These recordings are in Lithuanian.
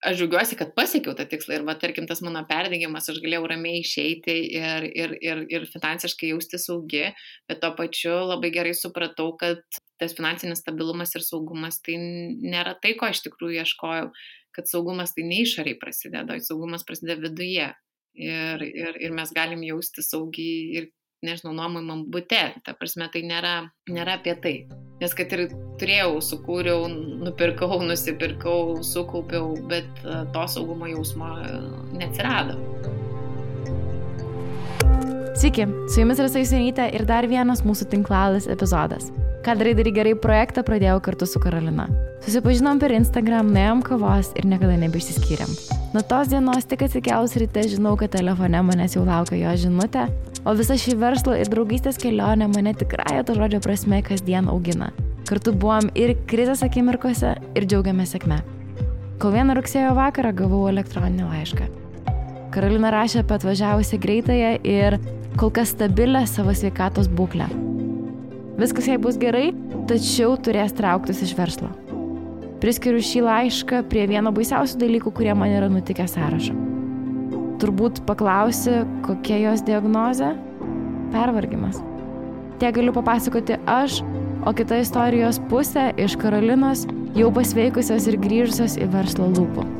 aš džiaugiuosi, kad pasiekiau tą tikslą ir, tarkim, tas mano perdegimas, aš galėjau ramiai išeiti ir finansiškai jausti saugi, bet to pačiu labai gerai supratau, kad tas finansinis stabilumas ir saugumas tai nėra tai, ko iš tikrųjų ieškojau, kad saugumas tai ne išoriai prasideda, saugumas prasideda viduje ir mes galim jausti saugiai ir, nežinau, nuomojamam bute, ta prasme, tai nėra apie tai. Nes kad ir turėjau, sukūriau, nupirkau, nusipirkau, sukaupiau, bet to saugumo jausmo neatsirado. Sveiki, su jumis Rasa Jusionytė ir dar vienas mūsų tinklalaidės epizodas. Ką darai gerai projektą pradėjau kartu su Karolina. Susipažinom per Instagram, nuėjom kavos ir niekada nebeišsiskyrėm. Nuo tos dienos tik atsikėlus ryte žinau, kad telefone manęs jau laukia jo žinutė, o visa šį verslo ir draugystės kelionė mane tikrąja to žodžio prasme kasdien augina. Kartu buvom ir krizės akimirkose ir džiaugiamės sėkme. Kol vieną rugsėjo vakarą gavau elektroninį laišką. Karolina rašė apie atvažiavusią greitąją ir kol kas stabilę savo sveikatos būklę. Viskas jai bus gerai, tačiau turės trauktis iš verslo. Priskiriu šį laišką prie vieno baisiausių dalykų, kurie man yra nutikę sąrašo. Turbūt paklausi, kokia jos diagnozė? Pervargimas. Tiek galiu papasakoti aš, o kita istorijos pusė iš Karolinos jau pasveikusios ir grįžusios į verslo lūpų.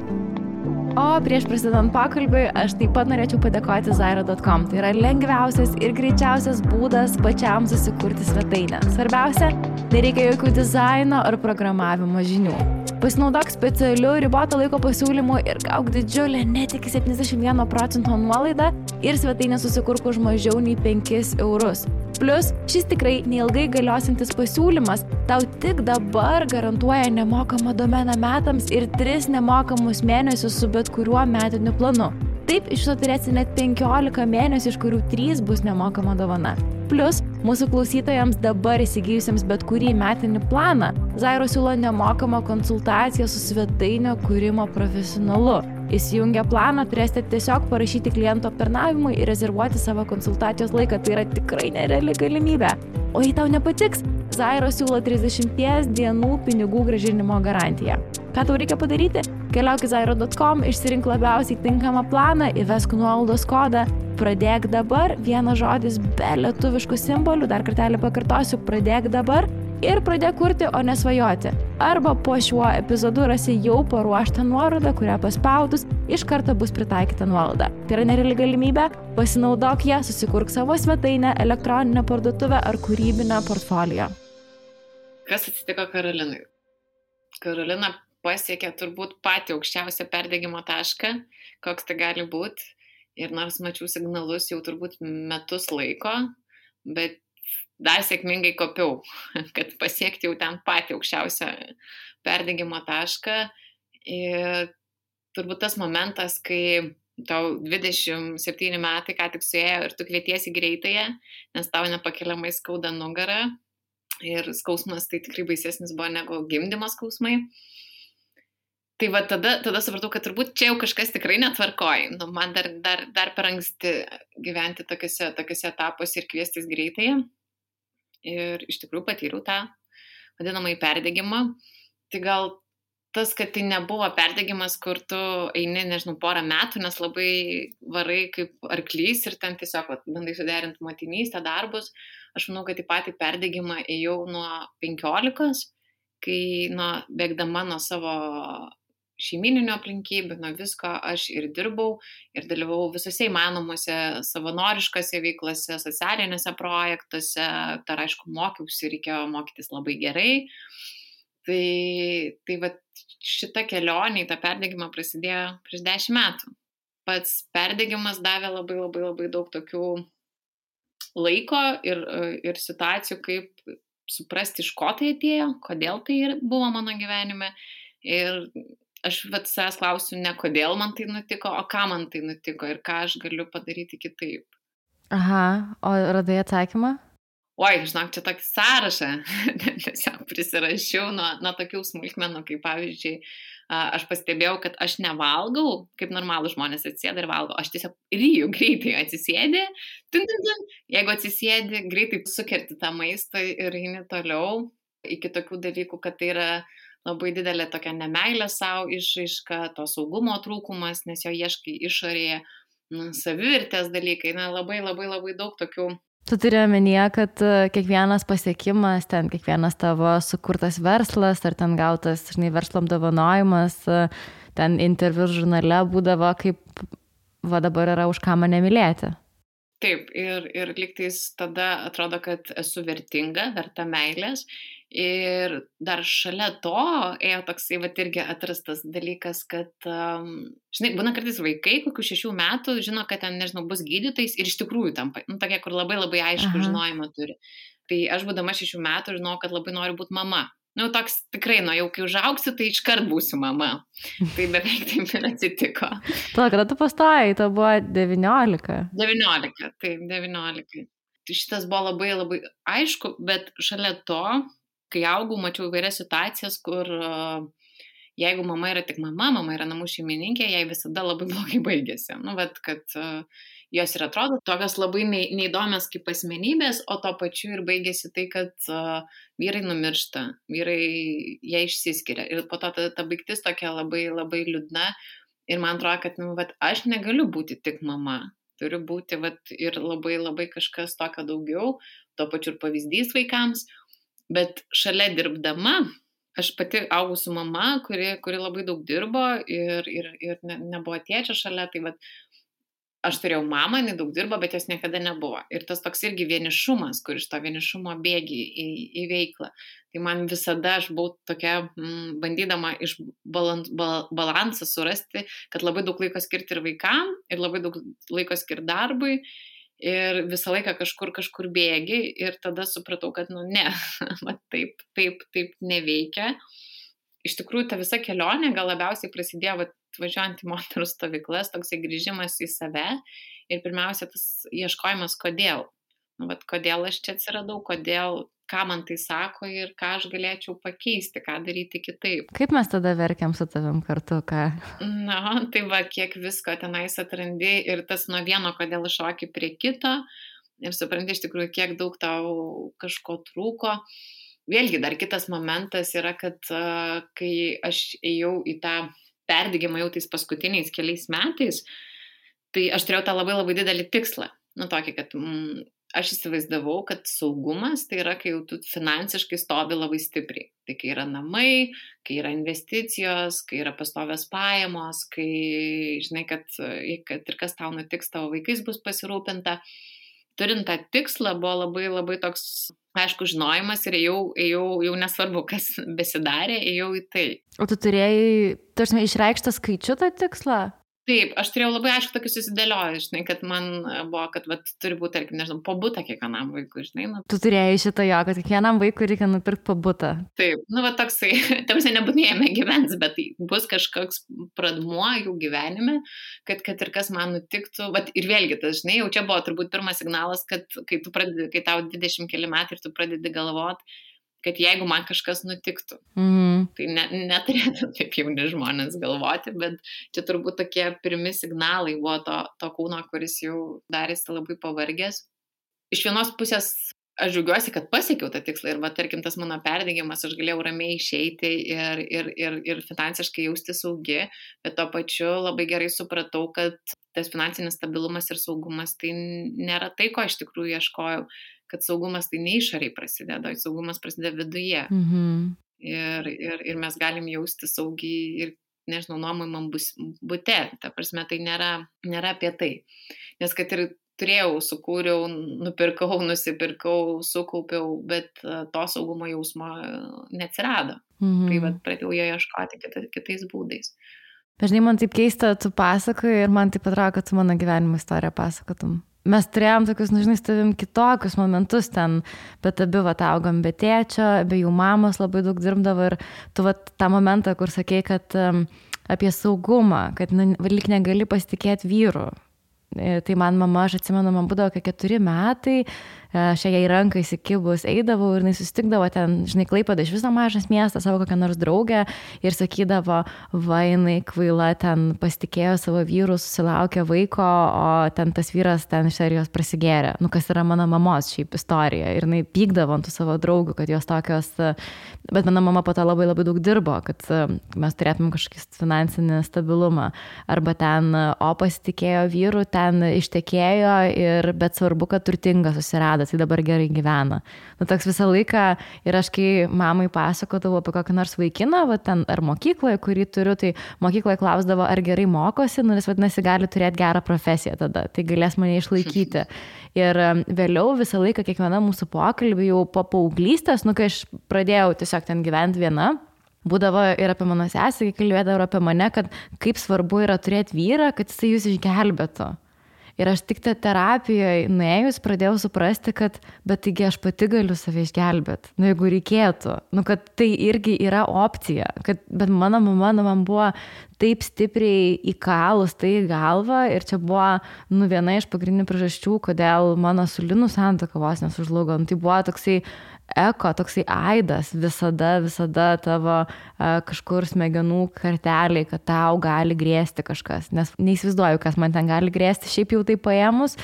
O prieš prasidedant pokalbiui, aš taip pat norėčiau padėkoti Zairo.com. Tai yra lengviausias ir greičiausias būdas pačiam susikurti svetainę. Svarbiausia, nereikia jokių dizaino ar programavimo žinių. Pasinaudok specialiu riboto laiko pasiūlymu ir gauk didžiulę net iki 71% nuolaidą ir svetainę susikurk už mažiau nei 5 eurus. Plus, šis tikrai neilgai galiosintis pasiūlymas tau tik dabar garantuoja nemokamą domeną metams ir 3 nemokamus mėnesius su bet kuriuo metiniu planu. Taip, iš to turėsi net 15 mėnesių, iš kurių 3 bus nemokama dovana. Plus, mūsų klausytojams dabar įsigijusiems bet kurį metinį planą, Zairo siūlo nemokamą konsultaciją su svetainio kūrimo profesionalu. Įsijungę planą turėsite tiesiog parašyti kliento aptarnavimui ir rezervuoti savo konsultacijos laiką. Tai yra tikrai nereali galimybė. O jei tau nepatiks, Zairo siūlo 30 dienų pinigų grąžinimo garantiją. Ką tau reikia padaryti? Keliauk į Zairo.com, išsirink labiausiai tinkamą planą, įvesk nuolaidos kodą, pradėk dabar, vienas žodis be lietuviškų simbolių, dar kartelį pakartosiu, pradėk dabar ir pradėk kurti, o nesvajoti. Arba po šiuo epizodu rasi jau paruoštą nuorodą, kurią paspaudus iš karto bus pritaikyta nuolaida. Tai yra nereali galimybė, pasinaudok ją, susikurk savo svetainę, elektroninę parduotuvę ar kūrybinę portfolio. Kas atsitiko Karolinai? Karolina pasiekė turbūt patį aukščiausią perdegimo tašką, koks tai gali būti. Ir nors mačiau signalus jau turbūt metus laiko, bet dar sėkmingai kopiau, kad pasiekti jau ten patį aukščiausią perdegimo tašką. Ir turbūt tas momentas, kai tau 27 metai ką tik suėjo ir tu kvietiesi greitąją, nes tau nepakeliamai skauda nugarą ir skausmas tai tikrai baisesnis buvo negu gimdymo skausmai. Tai va tada supratau, kad turbūt čia jau kažkas tikrai netvarkoja. Man dar per anksti gyventi tokiuose etapuose ir kviestis greitąją. Ir iš tikrųjų patyriau tą vadinamąjį perdegimą. Tai gal tas, kad tai nebuvo perdegimas, kur tu eini, nežinau, porą metų, nes labai varai kaip arklys ir ten tiesiog bandai suderinti motinystę, darbus. Aš manau, kad į patį perdegimą ėjau nuo 15, kai bėgdama nuo savo šeimyninių aplinkybių, nuo visko aš ir dirbau ir dalyvavau visose įmanomuose savanoriškose veiklose, socialinėse projektuose, dar aišku mokiausi, reikėjo mokytis labai gerai. Tai va šita kelionė į tą perdegimą prasidėjo prieš 10 metų. Pats perdegimas davė labai daug tokių laiko ir situacijų, kaip suprasti, iš ko tai atėjo, kodėl tai buvo mano gyvenime. Ir aš savęs klausiu ne kodėl man tai nutiko, o ką man tai nutiko ir ką aš galiu padaryti kitaip. Aha, o radai atsakymą? Oi, žinok, čia tokį sąrašą tiesiog prisirašiau nuo tokių smulkmenų, kaip pavyzdžiui, aš pastebėjau, kad aš nevalgau, kaip normalų žmonės atsisėda ir valgo, aš tiesiog ryju greitai atsisėdi, jeigu atsisėdi, greitai sukerti tą maistą ir eini toliau, iki tokių dalykų, kad tai yra labai didelė tokia nemeilė savo išraiška, to saugumo trūkumas, nes jo ieškai išorėje, savivertės dalykai, labai daug tokių. Tu turi omenyje, kad kiekvienas pasiekimas, ten kiekvienas tavo sukurtas verslas, ar ten gautas, verslo apdovanojimas, ten interviu žurnale būdavo kaip, va dabar yra už ką mane mylėti. Taip, ir lygtais tada atrodo, kad esu vertinga, verta meilės. Ir dar šalia to ėjo toksai, irgi atrastas dalykas, kad, būna kartais vaikai, kokių 6 metų, žino, kad ten, bus gydytojais ir iš tikrųjų tampa, tokie, kur labai aišku žinojimą turi. Tai aš būdama 6 metų žinau, kad labai noriu būti mama. Toks tikrai, jau kai užaugsiu, tai iškart būsiu mama. Tai beveik taip ir atsitiko. Kada tu pastojai, to buvo 19. 19, taip, 19. Tai šitas buvo labai aišku, bet šalia to, kai augau, mačiau įvairias situacijas, kur jeigu mama yra tik mama yra namų šeimininkė, jai visada labai blogai baigėsi. Kad jos ir atrodo tokios labai neįdomios kaip asmenybės, o to pačiu ir baigėsi tai, kad vyrai numiršta, vyrai jie išsiskiria. Ir po to ta baigtis tokia labai liūdna. Ir man atrodo, kad aš negaliu būti tik mama. Turiu būti ir labai kažkas tokio daugiau, to pačiu ir pavyzdys vaikams. Bet šalia dirbdama, aš pati augau su mama, kuri labai daug dirbo ir nebuvo tėčio šalia, tai aš turėjau mamą, jinai daug dirbo, bet jos niekada nebuvo. Ir tas toks irgi vienišumas, kur iš to vienišumo bėgi į veiklą. Tai man visada aš buvau tokia, bandydama iš balansą surasti, kad labai daug laiko skirti ir vaikam, ir labai daug laiko skirti darbui. Ir visą laiką kažkur bėgi ir tada supratau, kad ne, taip neveikia. Iš tikrųjų, ta visa kelionė gal labiausiai prasidėjo važiuojant į moterų stovyklas, toksai grįžimas į save ir pirmiausia tas ieškojimas kodėl. Kodėl aš čia atsiradau, ką man tai sako ir ką aš galėčiau pakeisti, ką daryti kitaip. Kaip mes tada verkiam su tavim kartu, ką? Tai kiek visko tenais atrandi ir tas nuo vieno kodėl šoki prie kito ir supranti iš tikrųjų, kiek daug tau kažko trūko. Vėlgi dar kitas momentas yra, kad kai aš ėjau į tą perdegimą jau tais paskutiniais keliais metais, tai aš turėjau tą labai didelį tikslą. Tokį, kad aš įsivaizdavau, kad saugumas tai yra, kai jau tu finansiškai stovi labai stipriai. Tai kai yra namai, kai yra investicijos, kai yra pastovios pajamos, kai žinai, kad ir kas tau nutiks, tavo vaikais bus pasirūpinta. Turint tą tikslą buvo labai toks, aišku, žinojimas ir ėjau nesvarbu, kas besidarė, ėjau į tai. O tu turėjai, išreikštą skaičių tą tikslą? Taip, aš turėjau labai aišku tokį susidėliojęs, žinai, kad man buvo, kad turi būti, tarkim, po butą kiekvienam vaikui, žinai. Tu turėjai šitą jo, kad kiekvienam vaikui reikia nupirkti po butą. Taip, toksai, tamsiai nebūtinai jame gyvens, bet tai bus kažkoks pradmuo jų gyvenime, kad ir kas man nutiktų. Ir vėlgi, tas, žinai, jau čia buvo turbūt pirmas signalas, kad kai tau 20 keli metai ir tu pradedi galvoti, kad jeigu man kažkas nutiktų, tai neturėtų taip jauni žmonės galvoti, bet čia turbūt tokie pirmi signalai buvo to kūno, kuris jau darėsi labai pavargęs. Iš vienos pusės aš džiaugiuosi, kad pasiekiau tą tikslą ir tarkim tas mano perdegimas, aš galėjau ramiai išeiti ir finansiškai jausti saugi, bet tuo pačiu labai gerai supratau, kad tas finansinis stabilumas ir saugumas tai nėra tai, ko iš tikrųjų ieškojau. Kad saugumas tai ne išoriai prasideda, saugumas prasideda viduje. Ir mes galim jausti saugiai ir, nežinau, nuomojamam bute. Ta prasme, tai nėra apie tai. Nes kad ir turėjau, sukūriau, nupirkau, nusipirkau, sukaupiau, bet to saugumo jausmo neatsirado. Tai pradėjau jo ieškoti kitais būdais. Žinai, man taip keista, tu pasakoji ir man taip atrodo, kad tu mano gyvenimo istoriją pasakotum. Mes turėjom tokius, žinai, stavim kitokius momentus ten, bet abi augom be tėčio, be jų mamos labai daug dirbdavo ir tu tą momentą, kur sakei, kad apie saugumą, kad lyg negali pasitikėti vyru. Tai man mama, aš atsimenu, man būdavo 4 metai šiai rankai įsikibus eidavau ir jis susitikdavo ten, žinai, Klaipėda iš viso mažas miestas, savo kokią nors draugę ir sakydavo, va, jinai kvaila ten pasitikėjo savo vyrų, susilaukė vaiko, o ten tas vyras ten iš serijos prasigėrė. Nu, kas yra mano mamos šiaip istorija. Ir jinai pykdavo ant tų savo draugų, kad jos tokios, bet mano mama po to labai labai daug dirbo, kad mes turėtume kažkokį finansinį stabilumą. Arba ten, o pasitikėjo vyrų, ten ištekėjo, bet svarbu, kad turtinga susirado, tai dabar gerai gyvena. Nu, toks visą laiką ir aš kai mamai pasakodavau apie kokį nors vaikiną, va, ten ar mokykloje, kurį turiu, tai mokykloje klausdavo, ar gerai mokosi, nu, nes vadinasi, gali turėti gerą profesiją tada, tai galės mane išlaikyti. Ir vėliau visą laiką kiekviena mūsų pokalbį jau po paauglystės, nu, kai aš pradėjau tiesiog ten gyventi viena, būdavo ir apie mano sesę, kai kalbėdavo ir apie mane, kad kaip svarbu yra turėti vyrą, kad jisai jūs išgelbėtų. Ir aš tik terapijoje nuėjus pradėjau suprasti, kad bet taigi aš pati galiu save išgelbėti, nu jeigu reikėtų, nu kad tai irgi yra opcija, bet mano mama man buvo taip stipriai įkalus tai į galvą ir čia buvo viena iš pagrindinių priežasčių, kodėl mano su Linu santuoka vos nesužlugo. Tai buvo toksai toksai aidas visada tavo kažkur smegenų karteliai, kad tau gali grėsti kažkas, nes neįsivaizduoju, kas man ten gali grėsti, šiaip jau tai paėmus,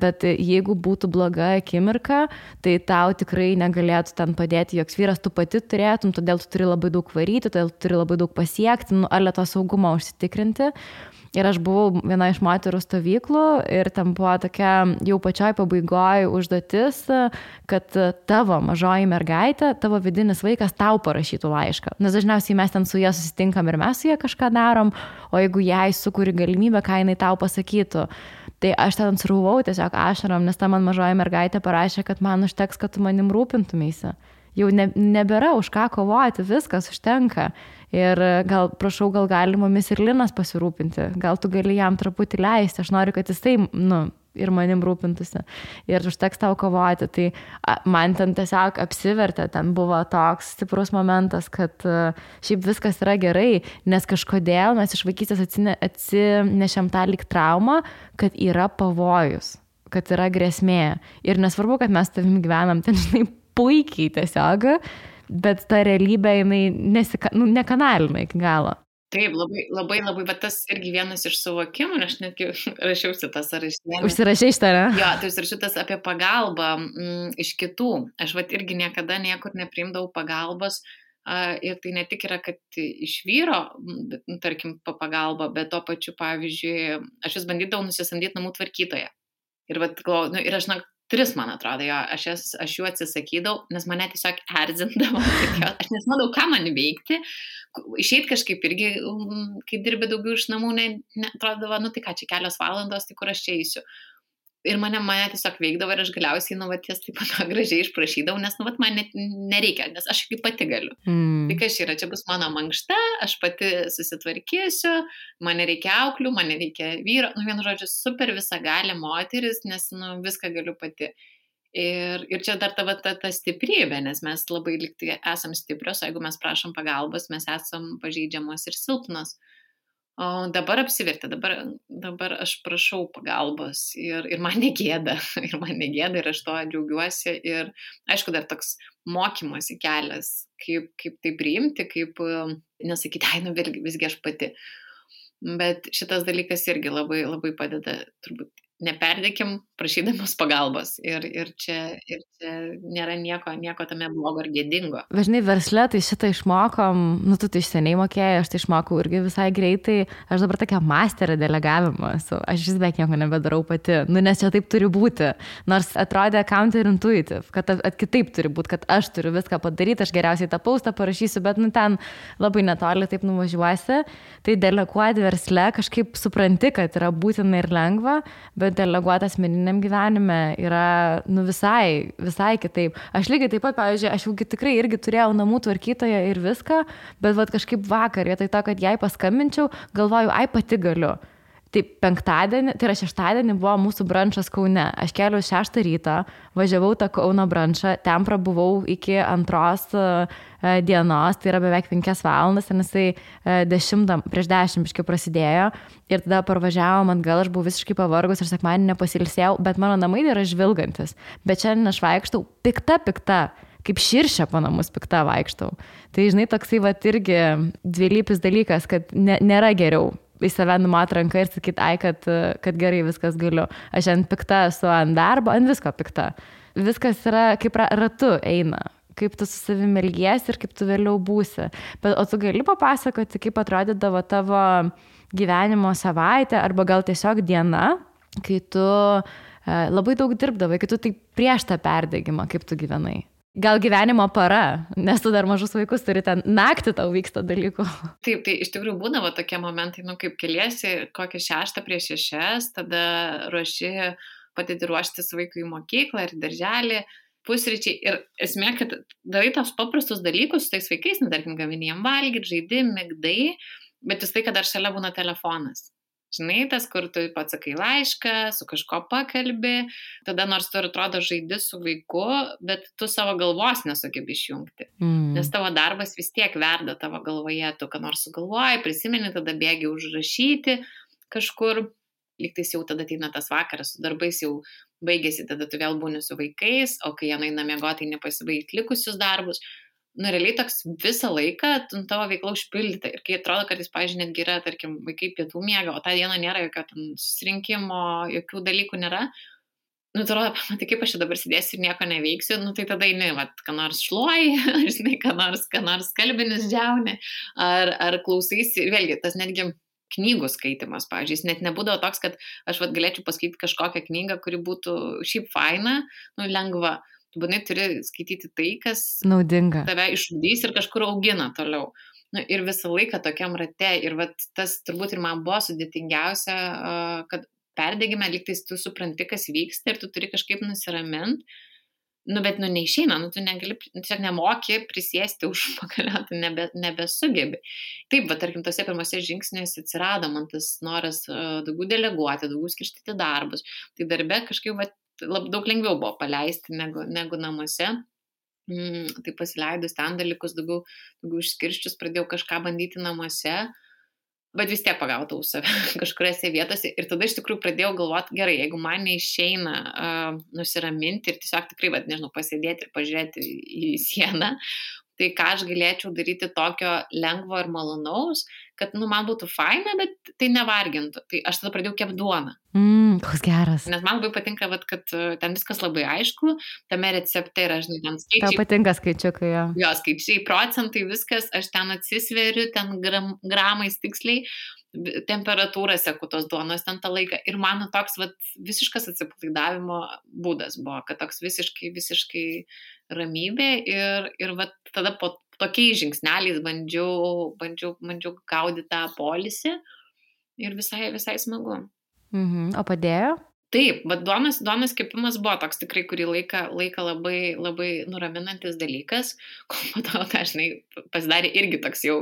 bet jeigu būtų bloga akimirka, tai tau tikrai negalėtų ten padėti joks vyras, tu pati turėtum, todėl tu turi labai daug varyti, todėl tu turi labai daug pasiekti, ar to saugumą užsitikrinti. Ir aš buvau viena iš moterų stovyklų ir ten buvo tokia jau pačioj pabaigoje užduotis, kad tavo mažoji mergaitė, tavo vidinis vaikas tau parašytų laišką. Nes dažniausiai mes ten su ja susitinkam ir mes su ja kažką darom, o jeigu jai sukuri galimybę, ką jinai tau pasakytų. Tai aš ten srūvau tiesiog ašarom, nes ta man mažoji mergaitė parašė, kad man užteks, kad tu manim rūpintumėsi. Jau nebėra už ką kovoti, viskas užtenka. Ir gal gali mumis ir Linas pasirūpinti, gal tu gali jam truputį leisti, aš noriu, kad jisai, ir manim rūpintųsi. Ir užteks tau kovoti. Tai man ten tiesiog apsivertė, ten buvo toks stiprus momentas, kad šiaip viskas yra gerai, nes kažkodėl mes iš vaikystės atsinešėm tą lyg traumą, kad yra pavojus, kad yra grėsmė. Ir nesvarbu, kad mes tavim gyvenam ten, žinai, puikiai tiesiog, bet ta realybė, jinai nekanalina iki galo. Taip, labai, bet tas irgi vienas iš suvokimų, aš netgi rašiausi tas ar išsiėmė. Užsirašai šitą, ne? Jo, tai užsirašiau tas apie pagalbą iš kitų. Aš irgi niekada niekur nepriimdavau pagalbos ir tai ne tik yra, kad iš vyro, tarkim, pagalba, bet to pačiu, pavyzdžiui, aš vis bandydavau nusisamdyti namų tvarkytoją. Ir, ir aš 3, man atrodo, jo, aš jų atsisakydavau, nes mane tiesiog erzindavo, aš nesimodau, ką man veikti, išeit kažkaip irgi, kai dirbi daugiau iš namų, atrodavo, tai ką, čia kelios valandos, tai kur aš čia eisiu. Ir mane tiesiog veikdavo ir aš galiausiai, ties taip pat gražiai išprašydavau, nes, man nereikia, nes aš kaip pati galiu. Tai kas yra, čia bus mano mankšta, aš pati susitvarkysiu, man nereikia auklių, man nereikia vyro, vienu žodžiu, super visagalė moteris, nes, viską galiu pati. Ir čia dar ta stiprybė, nes mes labai liktai esam stiprios, o jeigu mes prašom pagalbos, mes esam pažeidžiamos ir silpnos. O dabar apsivertė, dabar aš prašau pagalbos ir man negėda, ir aš to džiaugiuosi. Ir aišku, dar toks mokymosi kelias, kaip tai priimti, kaip nesakyti, visgi aš pati. Bet šitas dalykas irgi labai, labai padeda, turbūt neperdėkim prašydamas pagalbos. Ir čia nėra nieko tame blogo ar gėdingo. Važinai, versle tai šitą išmokom, tu tai iš seniai mokėjai, aš tai išmokau irgi visai greitai. Aš dabar tokia masterė delegavimo esu. Aš vis beveik nieko nebedarau pati. Nes čia taip turi būti. Nors atrodė counterintuitive, kad kitaip turi būti, kad aš turiu viską padaryti, aš geriausiai tą postą parašysiu, bet ten labai netoli taip nuvažiuosi. Tai deleguoti versle kažkaip supranti, kad yra būtina ir lengva, bet deleguoti asmeniniam gyvenime yra visai kitaip. Aš lygiai taip pat, pavyzdžiui, aš jau tikrai irgi turėjau namų tvarkytoją ir viską, bet kažkaip vakar, vietoj to, kad jai paskambinčiau, galvoju, pati galiu. Tai penktadienį, tai yra šeštadienį buvo mūsų brančas Kaune. Aš kėliau 6 ryto, važiavau tą Kauno brančą, ten prabuvau iki 2 dienos, tai yra beveik 5 valandas, ir jisai prieš 10 biškai prasidėjo ir tada parvažiavom atgal, aš buvau visiškai pavargus ir sekmadienį nepasilsėjau, bet mano namai yra žvilgantis. Bet šiandien aš vaikštau pikta, kaip širšė po namus pikta vaikštau. Tai žinai, toksai irgi dvilypis dalykas, kad nėra geriau į save numat ranką ir sakyti, kad gerai viskas galiu. Aš ant pikta esu ant darbo, ant visko pikta. Viskas yra kaip ratu eina, kaip tu su savimi elgiesi ir kaip tu vėliau būsi. Bet, o tu gali papasakoti, kaip atrodydavo tavo gyvenimo savaitė arba gal tiesiog diena, kai tu labai daug dirbdavai, kai tu tai prieš tą perdegimą, kaip tu gyvenai. Gal gyvenimo para, nes tu dar mažus vaikus turi, ten naktį tau vyksta dalykų. Taip, tai iš tikrųjų būdavo tokie momentai, kaip keliesi kokią 6 prieš 6, tada padedi ruoštis vaikui į mokyklą ir darželį, pusryčiai. Ir esmė, kad darai tos paprastus dalykus su tais vaikais, tarkim, gamini jiem valgyti, žaidi, migdai, bet vis tai, kad dar šalia būna telefonas. Žinai, tas, kur tu pats sakai laišką, su kažko pakalbi, tada nors tu atrodo žaidi su vaiku, bet tu savo galvos nesugebi išjungti. Nes tavo darbas vis tiek verda tavo galvoje, tu ką nors sugalvoji, prisimeni, tada bėgi užrašyti kažkur, lygtais jau tada ateina tas vakaras, su darbais jau baigėsi, tada tu vėl būni su vaikais, o kai jie eina miegoti, tai nepasibaigt likusius darbus. Realiai toks visą laiką tavo veikla užpildyta. Ir kai atrodo, kad jis, pavyzdžiui, netgi yra, tarkim, vaikai pietų miega, o tą dieną nėra jokio susirinkimo, jokių dalykų nėra, atrodo, tai kaip aš čia dabar sėdėsiu ir nieko neveiksiu, tai tada eini, ką nors šluoji, žinai, ką nors kalbinis džiauni, ar klausaisi, vėlgi, tas netgi knygų skaitimas, pavyzdžiui, jis net nebūdavo toks, kad aš galėčiau paskaityti kažkokią knygą, kuri būtų šiaip faina, lengva. Tu būtinai turi skaityti tai, kas naudinga, tave išugdys ir kažkur augina toliau. Ir visą laiką tokiam rate. Ir tas turbūt ir man buvo sudėtingiausia, kad perdegime, lygtais tu supranti, kas vyksta ir tu turi kažkaip nusiraminti. Bet neišeina, tu negali, tiesiog nemoki prisėsti už pagalio, tu nebesugebi. Taip, tarkim, tose pirmose žingsniuose atsirado man tas noras daugiau deleguoti, daugiau skirstyti darbus. Tai darbe kažkaip daug lengviau buvo paleisti negu namuose. Tai pasileidus ten dalykus, daugiau išskirščius, pradėjau kažką bandyti namuose, bet vis tiek pagautau save kažkuriose vietose. Ir tada iš tikrųjų pradėjau galvoti, gerai, jeigu man neišeina nusiraminti ir tiesiog tikrai, pasėdėti ir pažiūrėti į sieną, tai ką aš galėčiau daryti tokio lengvo ir malonaus, kad man būtų faina, bet tai nevargintų. Tai aš tada pradėjau kepti duoną. Koks geras. Nes man labai patinka, kad ten viskas labai aišku, tame recepte yra, žinai, ten skaičiai. Tau patinka skaičiukai, jo. Jo, skaičiai, procentai, viskas, aš ten atsisveriu, ten gramais tiksliai, temperatūrą seku tos duonos ten tą laiką. Ir man toks visiškas atsipalaidavimo būdas buvo, kad toks visiškai ramybė ir tada po tokiais žingsneliais bandžiau gaudyti tą polisį ir visai smagu. O padėjo? Taip, bet duonos kepimas buvo toks tikrai kurį laiką labai, labai nuraminantis dalykas, kol po to dažnai pasidarė irgi toks jau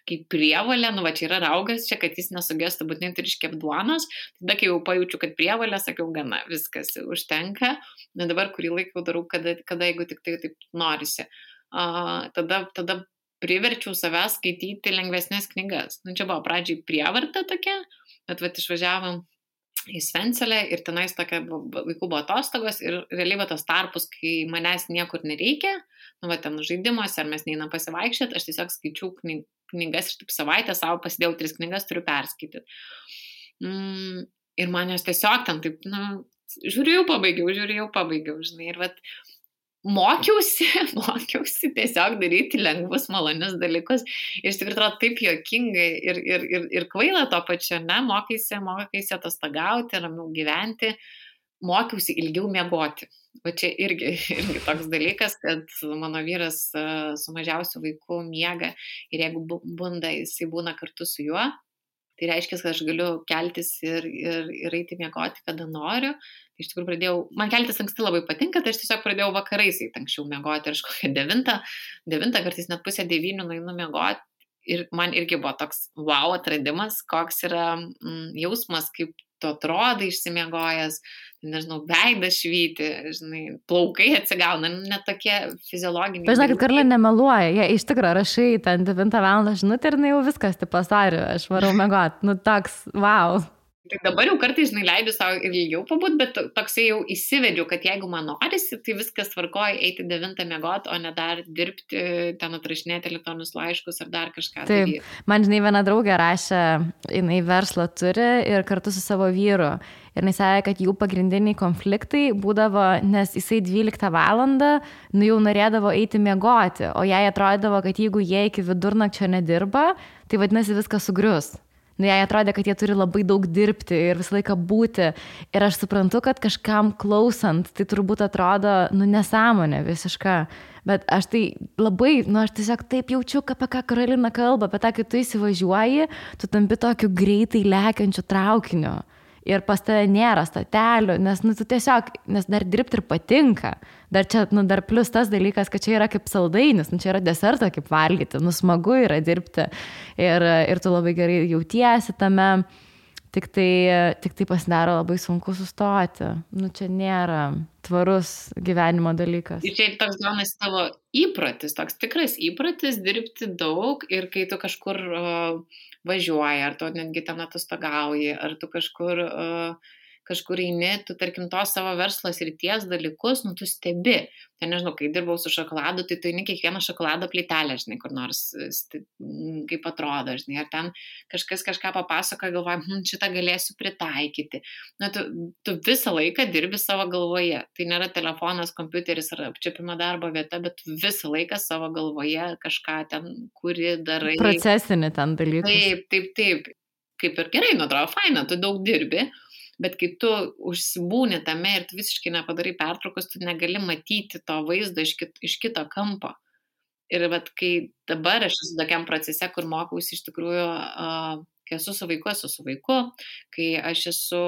kaip prievalė, čia yra raugas, čia, kad jis nesugestų, būtinai turi iškepti duonos, tada kai jau pajaučiu, kad prievalė, sakiau, gana, viskas užtenka, bet dabar kurį laiką darau, kada jeigu tik tai taip norisi. Tada priverčiau savęs skaityti lengvesnės knygas. Čia buvo pradžiai prievarta tokia, bet išvažiavom į Svencelę ir tenais tokia vaikų buvo atostogos ir realiai tos tarpus, kai manęs niekur nereikia, ten žaidimuose ar mes neinam pasivaikščioti, aš tiesiog skaičiau knygas ir taip savaitę savo pasidėjau 3 knygas, turiu perskaityti. Ir man jos tiesiog ten taip, žiūrėjau, pabaigiau, žinai, ir mokiausi tiesiog daryti lengvus, malonius dalykus. Ir iš tikrųjų atrodo taip juokingai ir kvaila to pačiu, mokaisi atostogauti, ramiau gyventi, mokiausi ilgiau miegoti. O čia irgi toks dalykas, kad mano vyras su mažiausiu vaiku miega ir jeigu bunda, jisai būna kartu su juo. Tai reiškia, kad aš galiu keltis ir eiti miegoti, kada noriu. Tai iš tikrųjų man keltis anksti labai patinka, tai aš tiesiog pradėjau vakarais anksčiau miegoti ir aš kokią 9, kartais net pusę 9 nueinu miegoti ir man irgi buvo toks wow atradimas, koks yra jausmas, kaip tu atrodai išsimiegojęs, nežinau, veidas švyti, žinai, plaukai atsigauna, net tokie fiziologiniai. Bet žinokit, Karla nemeluoja, jie iš tikrųjų rašai ten 9 val. Žinutę ir jau viskas, tai pasariu, aš varau miegot, nu toks, wow. Tai dabar jau kartais, žinai, leidžiu savo ir ilgiau pabūt, bet toksai jau įsivedžiu, kad jeigu man norisi, tai viskas tvarkoja eiti 9 miegot, o ne dar dirbti, ten atrašinėti elektroninius laiškus ar dar kažką. Taip, man, žinai, viena draugė rašė, jinai verslą turi ir kartu su savo vyru. Ir jis sakė, kad jų pagrindiniai konfliktai būdavo, nes jisai 12 valandą, nu jau norėdavo eiti miegoti, o jai atrodavo, kad jeigu jie iki vidurnakčio nedirba, tai vadinasi viskas sugrius. Nu, jai atrodė, kad jie turi labai daug dirbti ir visą laiką būti. Ir aš suprantu, kad kažkam klausant, tai turbūt atrodo, nu, nesąmonė visiška. Bet aš tai labai, nu, aš tiesiog taip jaučiu, apie ką Karolina kalba, apie tą, kai tu įsivažiuoji, tu tampi tokiu greitai lekiančiu traukiniu. Ir pas tave nėra statelių, nes, nu, tu tiesiog, nes dar dirbti ir patinka. Dar čia, nu, dar plus tas dalykas, kad čia yra kaip saldainis, nu, čia yra desertą kaip valgyti, nu, smagu yra dirbti. Ir tu labai gerai jautiesi tame, tik tai pasidaro labai sunku sustoti. Nu, čia nėra tvarus gyvenimo dalykas. Ir čia toks gaunasi tavo įprotis, toks tikras įprotis dirbti daug ir kai tu kažkur važiuoji, ar tu netgi ten atostogauji, ar tu kažkur eini, tu, tarkim, tos savo verslo srities dalykus, nu, tu stebi. Tai nežinau, kai dirbau su šokoladu, tai tu eini kiekvieną šokolado plytelę, žinai, kur nors, kaip atrodo, žinai, ar ten kažkas kažką papasakoja, galvoja, šitą galėsiu pritaikyti. Na, tu visą laiką dirbi savo galvoje. Tai nėra telefonas, kompiuteris ar apčiopimo darbo vieta, bet tu visą laiką savo galvoje kažką ten kuri darai. Procesinį ten dalykus. Taip. Kaip ir gerai, nu, atrodo, faina, tu daug dirbi. Bet kai tu užsibūni tame ir tu visiškai nepadarai pertraukos, tu negali matyti to vaizdo iš kito kampo. Ir vat, kai dabar aš esu tokiam procese, kur mokausi iš tikrųjų, kai esu su vaiku, kai aš esu,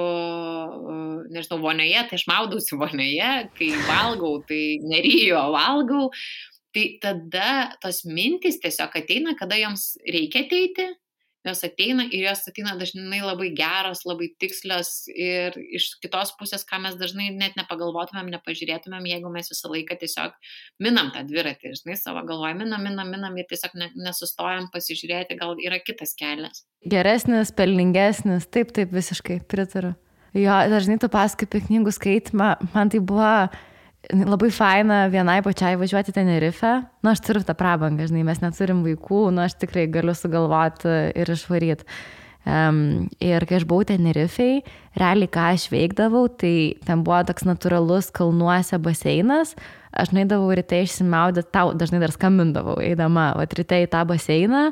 nežinau, vonioje, tai aš maudausi vonioje, kai valgau, tai neryju, valgau. Tai tada tos mintys tiesiog ateina, kada joms reikia ateiti. Jos ateina ir jos ateina dažnai labai geros, labai tikslios ir iš kitos pusės, ką mes dažnai net nepagalvotumėm, nepažiūrėtumėm, jeigu mes visą laiką tiesiog minam tą dviratį, žinai, savo galvoje, minam ir tiesiog nesustojam pasižiūrėti, gal yra kitas kelias. Geresnis, pelningesnis, taip, visiškai pritariu. Jo, dažnai tu pasakai apie knygų skaitimą, man tai buvo labai faina vienai pačiai važiuoti Tenerife. Nu, aš turiu tą prabangą, žinai, mes neturim vaikų, nu, aš tikrai galiu sugalvoti ir išvaryti. Ir kai aš buvau Tenerifei, realiai ką aš veikdavau, tai ten buvo toks natūralus kalnuose baseinas. Aš nueidavau ryte išsimaudyti, tau dažnai dar skambindavau, eidama ryte į tą baseiną.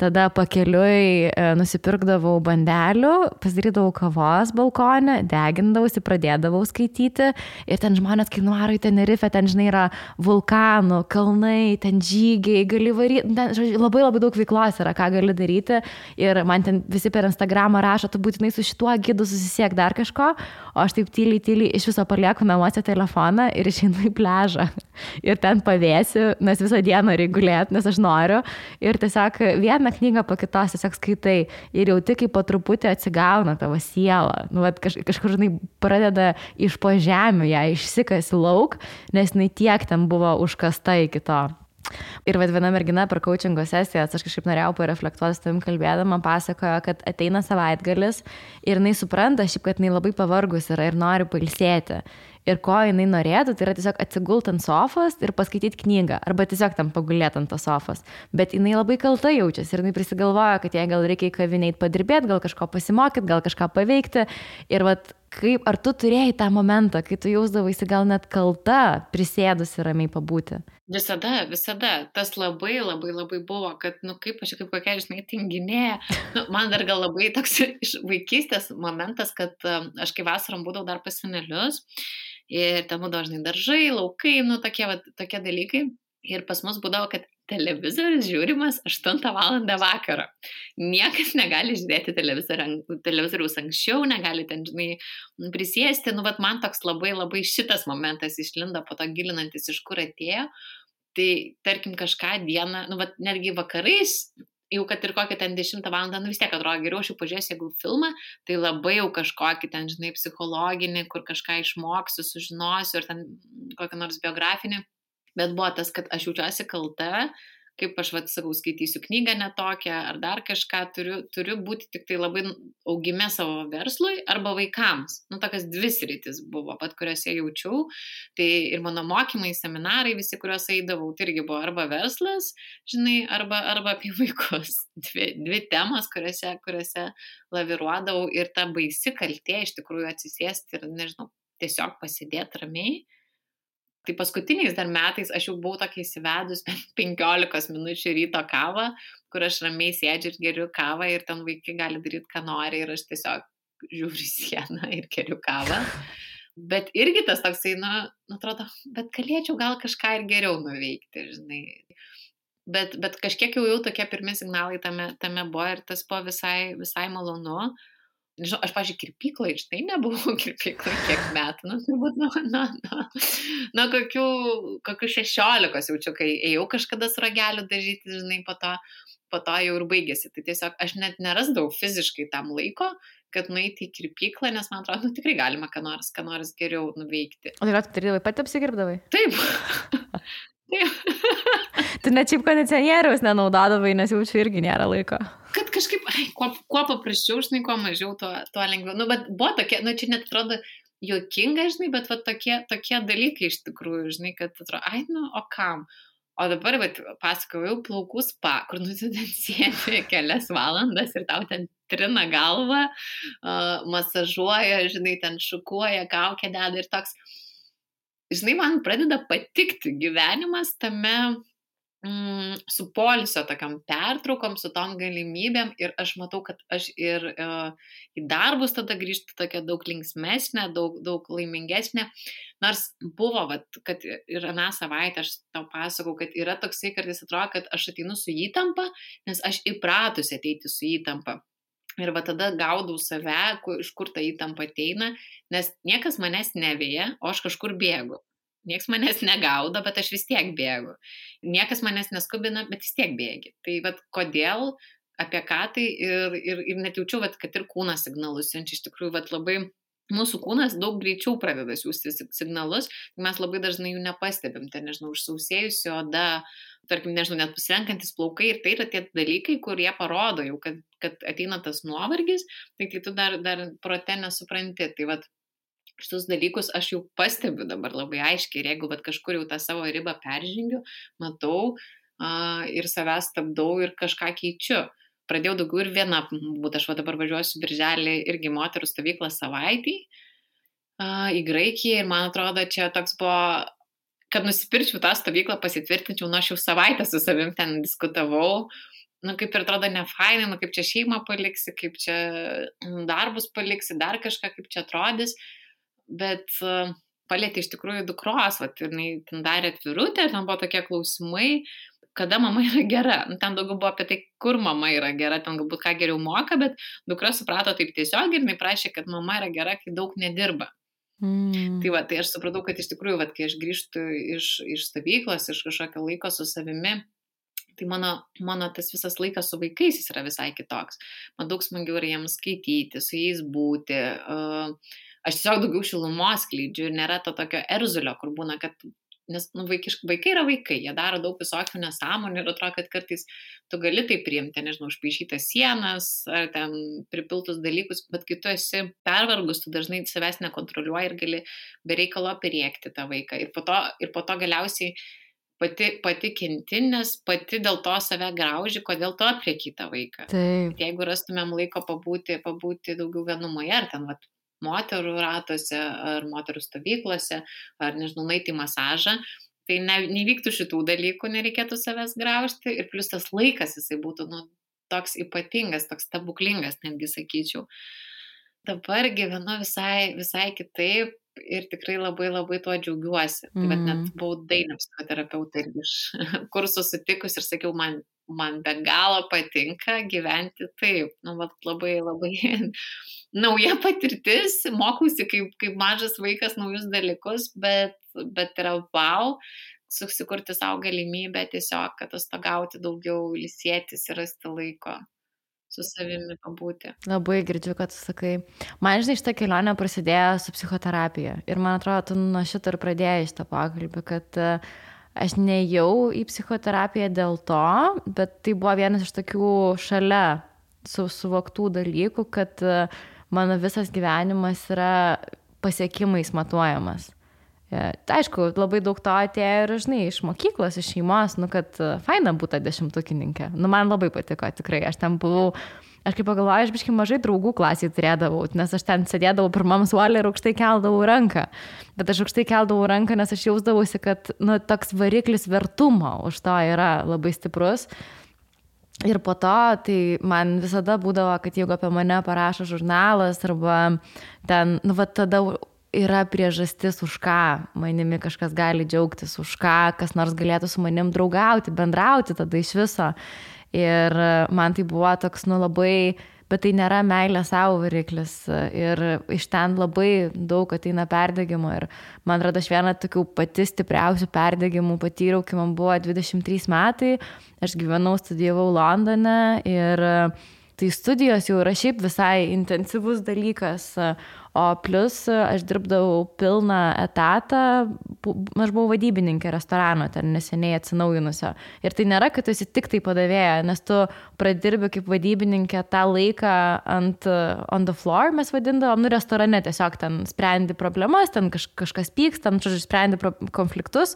Tada pakeliui nusipirkdavau bandelių, pasidarydavau kavos balkone, degindavausi, pradėdavau skaityti ir ten žmonės, kai nuaro į Tenerife, ten, žinai, yra vulkanų, kalnai, ten žygiai, gali varyti, ten labai daug veiklos yra, ką gali daryti ir man ten visi per Instagramą rašo, tu būtinai su šituo gidu susisiek dar kažko, o aš taip tyliai iš viso palieku namuose telefoną ir išeinu į pliažą ir ten pavėsiu, nes visą dieną reguliuoti, nes aš noriu ir tiesiog vieną knygą po kitos tiesiog skaitai ir jauti, kaip po truputį atsigauna tavo siela. Nu, kažkur, žinai, pradeda iš po žemių ją išsikasi lauk, nes jinai tiek ten buvo užkasta iki to. Ir viena mergina per coachingo sesijas, aš kažkaip norėjau pareflektuoti su tavim kalbėdama, pasakojo, kad ateina savaitgalis ir jinai supranta šiaip, kad jinai labai pavargus yra ir nori pailsėti. Ir ko jinai norėtų, tai yra tiesiog atsigult ant sofos ir paskaityti knygą, arba tiesiog tam pagulėti ant tos sofos. Bet jinai labai kalta jaučiasi ir jinai prisigalvoja, kad jai gal reikia į kavinę eiti padirbėti, gal kažko pasimokyti, gal kažką paveikti. Ir vat, kaip, ar tu turėjai tą momentą, kai tu jausdavaisi gal net kalta, prisėdusi ramiai pabūti? Visada. Tas labai buvo, kad, nu, kaip aš kaip kokia, žinai, tinginėja. Nu, man dar gal labai toks iš vaikystės momentas, kad aš kai vasarom būdavau dar pas senelius ir ten būdavo, žinai, daržai, laukai, nu, tokie dalykai. Ir pas mus būdavo, kad televizorius žiūrimas 8 valandą vakaro. Niekas negali žiūrėti televizoriaus anksčiau, negali ten, žinai, prisėsti. Nu, vat man toks labai šitas momentas išlindo, po to gilinantis, iš kur atėjo. Tai, tarkim, kažką dieną, nu, vat netgi vakarais jau kad ir kokią ten 10 valandą, vis tiek atrodo geriau, aš jau pažiūrėsiu, jeigu filmą, tai labai jau kažkokį ten, žinai, psichologinį, kur kažką išmoksiu, sužinosiu, ir ten kokią nors biografinį. Bet buvo tas, kad aš jaučiuosi kalta, kaip aš sakau, skaitysiu knygą netokią, ar dar kažką, turiu būti tik tai labai augime savo verslui arba vaikams. Tokias 2 sritis buvo, kuriuose jaučiau. Tai ir mano mokymai, seminarai, visi, kuriuos eidavau, tai irgi buvo arba verslas, žinai, arba apie vaikus. 2 temos, kuriuose laviruodavau, ir ta baisi kaltė iš tikrųjų atsisėsti ir, nežinau, tiesiog pasidėti ramiai. Tai paskutiniais dar metais aš jau buvau tokia įsivedus 15 minučių ryto kavą, kur aš ramiai sėdžiu ir geriu kavą ir ten vaikai gali daryti, ką nori, ir aš tiesiog žiūriu sieną ir geriu kavą. Bet irgi tas toksai, atrodo, bet galėčiau gal kažką ir geriau nuveikti, žinai. Bet kažkiek jau tokie pirmi signalai tame buvo, ir tas buvo visai malonu. Nežinau, aš, pavyzdžiui, kirpyklai, štai nebuvau kirpyklai kiek metų, turbūt nuo kokių 16 jaučiu, kai ėjau kažkada su rageliu dažyti, žinai, po to jau ir baigėsi. Tai tiesiog aš net nerasdavau fiziškai tam laiko, kad nueiti į kirpyklą, nes man atrodo, tikrai galima ką nors geriau nuveikti. O tai darydavai, pati apsikirpdavai? Taip. Tu net šiaip kondicionieriaus nenaudodavai, nes jaučiu irgi nėra laiko. Kad kažkaip, kuo paprasčiau, žinai, kuo mažiau, tuo lengviau. Bet buvo tokie, čia net atrodo juokinga, žinai, bet tokie dalykai iš tikrųjų, žinai, kad atrodo, o kam? O dabar, pasakojau, plaukų spa, kur ten sėdi kelias valandas ir tau ten trina galvą, masažuoja, žinai, ten šukuoja, kaukę deda ir toks. Žinai, man pradeda patikti gyvenimas tame su poilsio tokiam pertraukom, su tom galimybėm, ir aš matau, kad aš ir į darbus tada grįžtu tokia daug linksmesnė, daug laimingesnė. Nors buvo, kad ir aną savaitę aš tau pasakau, kad yra toksai kartais atrodo, kad aš ateinu su įtampa, nes aš įpratusi ateiti su įtampa. Ir tada gaudau save, iš kur ta įtampa ateina, nes niekas manęs neveja, o aš kažkur bėgu. Niekas manęs negaudo, bet aš vis tiek bėgu. Niekas manęs neskubina, bet vis tiek bėgi. Tai kodėl, apie ką tai, ir net jaučiu, kad ir kūnas signalus siunčia. Iš tikrųjų, labai mūsų kūnas daug greičiau pradeda siųsti signalus, mes labai dažnai jų nepastebim. Tai, nežinau, užsausėjusi oda, tarkim, nežinau, net pasirenkantis plaukai, ir tai yra tie dalykai, kurie parodo jau, kad ateina tas nuovargis, tai tu dar prote nesupranti. Tai šitus dalykus aš jau pastebiu dabar labai aiškiai, ir jeigu kažkur jau tą savo ribą peržengiu, matau ir savęs stabdau ir kažką keičiu. Pradėjau daugiau ir viena būt, aš dabar važiuosiu birželį irgi moterų stovyklą savaitį į Graikiją, ir man atrodo, čia toks buvo, kad nusipirčiau tą stovyklą, pasitvirtinčiau, aš jau savaitę su savim ten diskutavau. Kaip ir atrodo nefainai, kaip čia šeimą paliksi, kaip čia darbus paliksi, dar kažką, kaip čia atrodys. Bet palėtė iš tikrųjų dukros, ir jinai ten darė atvirutę, ten buvo tokie klausimai, kada mama yra gera. Ten daugiau buvo apie tai, kur mama yra gera, ten galbūt ką geriau moka, bet dukra suprato taip tiesiog, ir jinai prašė, kad mama yra gera, kai daug nedirba. Tai aš supratau, kad iš tikrųjų, kai aš grįžtu iš stovyklos, iš kažkokio laiko su savimi, tai mano tas visas laikas su vaikais jis yra visai kitoks. Man daug smagiau yra jiems skaityti, su jais būti. Aš tiesiog daugiau šilumos skleidžiu, ir nėra to tokio erzulio, kur būna, kad, nes vaikai yra vaikai, jie daro daug visokių nesąmonių, ir atrodo, kad kartais tu gali tai priimti, nežinau, užpaišytas sienas, ar ten pripiltus dalykus, bet kai tu esi pervargus, tu dažnai savęs nekontroliuoji ir gali be reikalo perėkti tą vaiką. Ir po to galiausiai pati kenti, nes pati dėl to save grauži, kodėl tu aplieki tą vaiką. Taip. Jeigu rastumėm laiko pabūti daugiau vienumoje, ar ten moterų ratuose, ar moterų stovyklose, ar, nežinau, nueiti į masažą, tai nevyktų šitų dalykų, nereikėtų savęs graužti, ir plus tas laikas jisai būtų toks ypatingas, toks stebuklingas, netgi sakyčiau. Dabar gyvenu visai kitaip, ir tikrai labai labai tuo džiaugiuosi. Tai net buvau dainų psichoterapeutė ir iš kursų sutikus ir sakiau, man be galo patinka gyventi taip. Labai labai nauja patirtis, mokausi kaip mažas vaikas naujus dalykus, bet yra wow, susikurti savo galimybę tiesiog atostogauti daugiau, ilsėtis ir rasti laiko su savimi pabūti. Labai girdžiu, kad tu sakai. Man, žinai, šitą kelionę prasidėjo su psichoterapija. Ir man atrodo, tu nuo šito ir pradėjai šitą pokalbį, kad aš nejau į psichoterapiją dėl to, bet tai buvo vienas iš tokių šalia suvoktų dalykų, kad mano visas gyvenimas yra pasiekimais matuojamas. Aišku, labai daug to atėjo ir, žinai, iš mokyklos, iš šeimos, kad faina būti 10-tukininkė. Man labai patiko, tikrai. Aš ten buvau, aš kaip pagalvoju, aš biškai mažai draugų klasiai turėdavau, nes aš ten sėdėdavau pirmam suolį ir aukštai keldavau ranką. Bet aš aukštai keldavau ranką, nes aš jausdavausi, kad toks variklis vertumo už to yra labai stiprus. Ir po to, tai man visada būdavo, kad jeigu apie mane parašo žurnalas arba ten, tada yra priežastis, už ką manimi kažkas gali džiaugtis, už ką kas nors galėtų su manim draugauti, bendrauti tada iš viso. Ir man tai buvo toks, labai, bet tai nėra meilė savo variklis. Ir iš ten labai daug ateina perdegimo. Ir man atrodo, aš vieną tokių pati stipriausių perdegimų patyriau, kai man buvo 23 metai. Aš gyvenau, studijavau Londone ir tai studijos jau yra šiaip visai intensyvus dalykas. O plus aš dirbdavau pilną etatą, aš buvau vadybininkė restorano, ten neseniai atsinaujinusio. Ir tai nėra, kad tu esi tik tai padavėja, nes tu pradirbi kaip vadybininkė tą laiką on the floor, mes vadindavom, restorane tiesiog ten sprendi problemas, ten kažkas pyksta, ten sprendi konfliktus.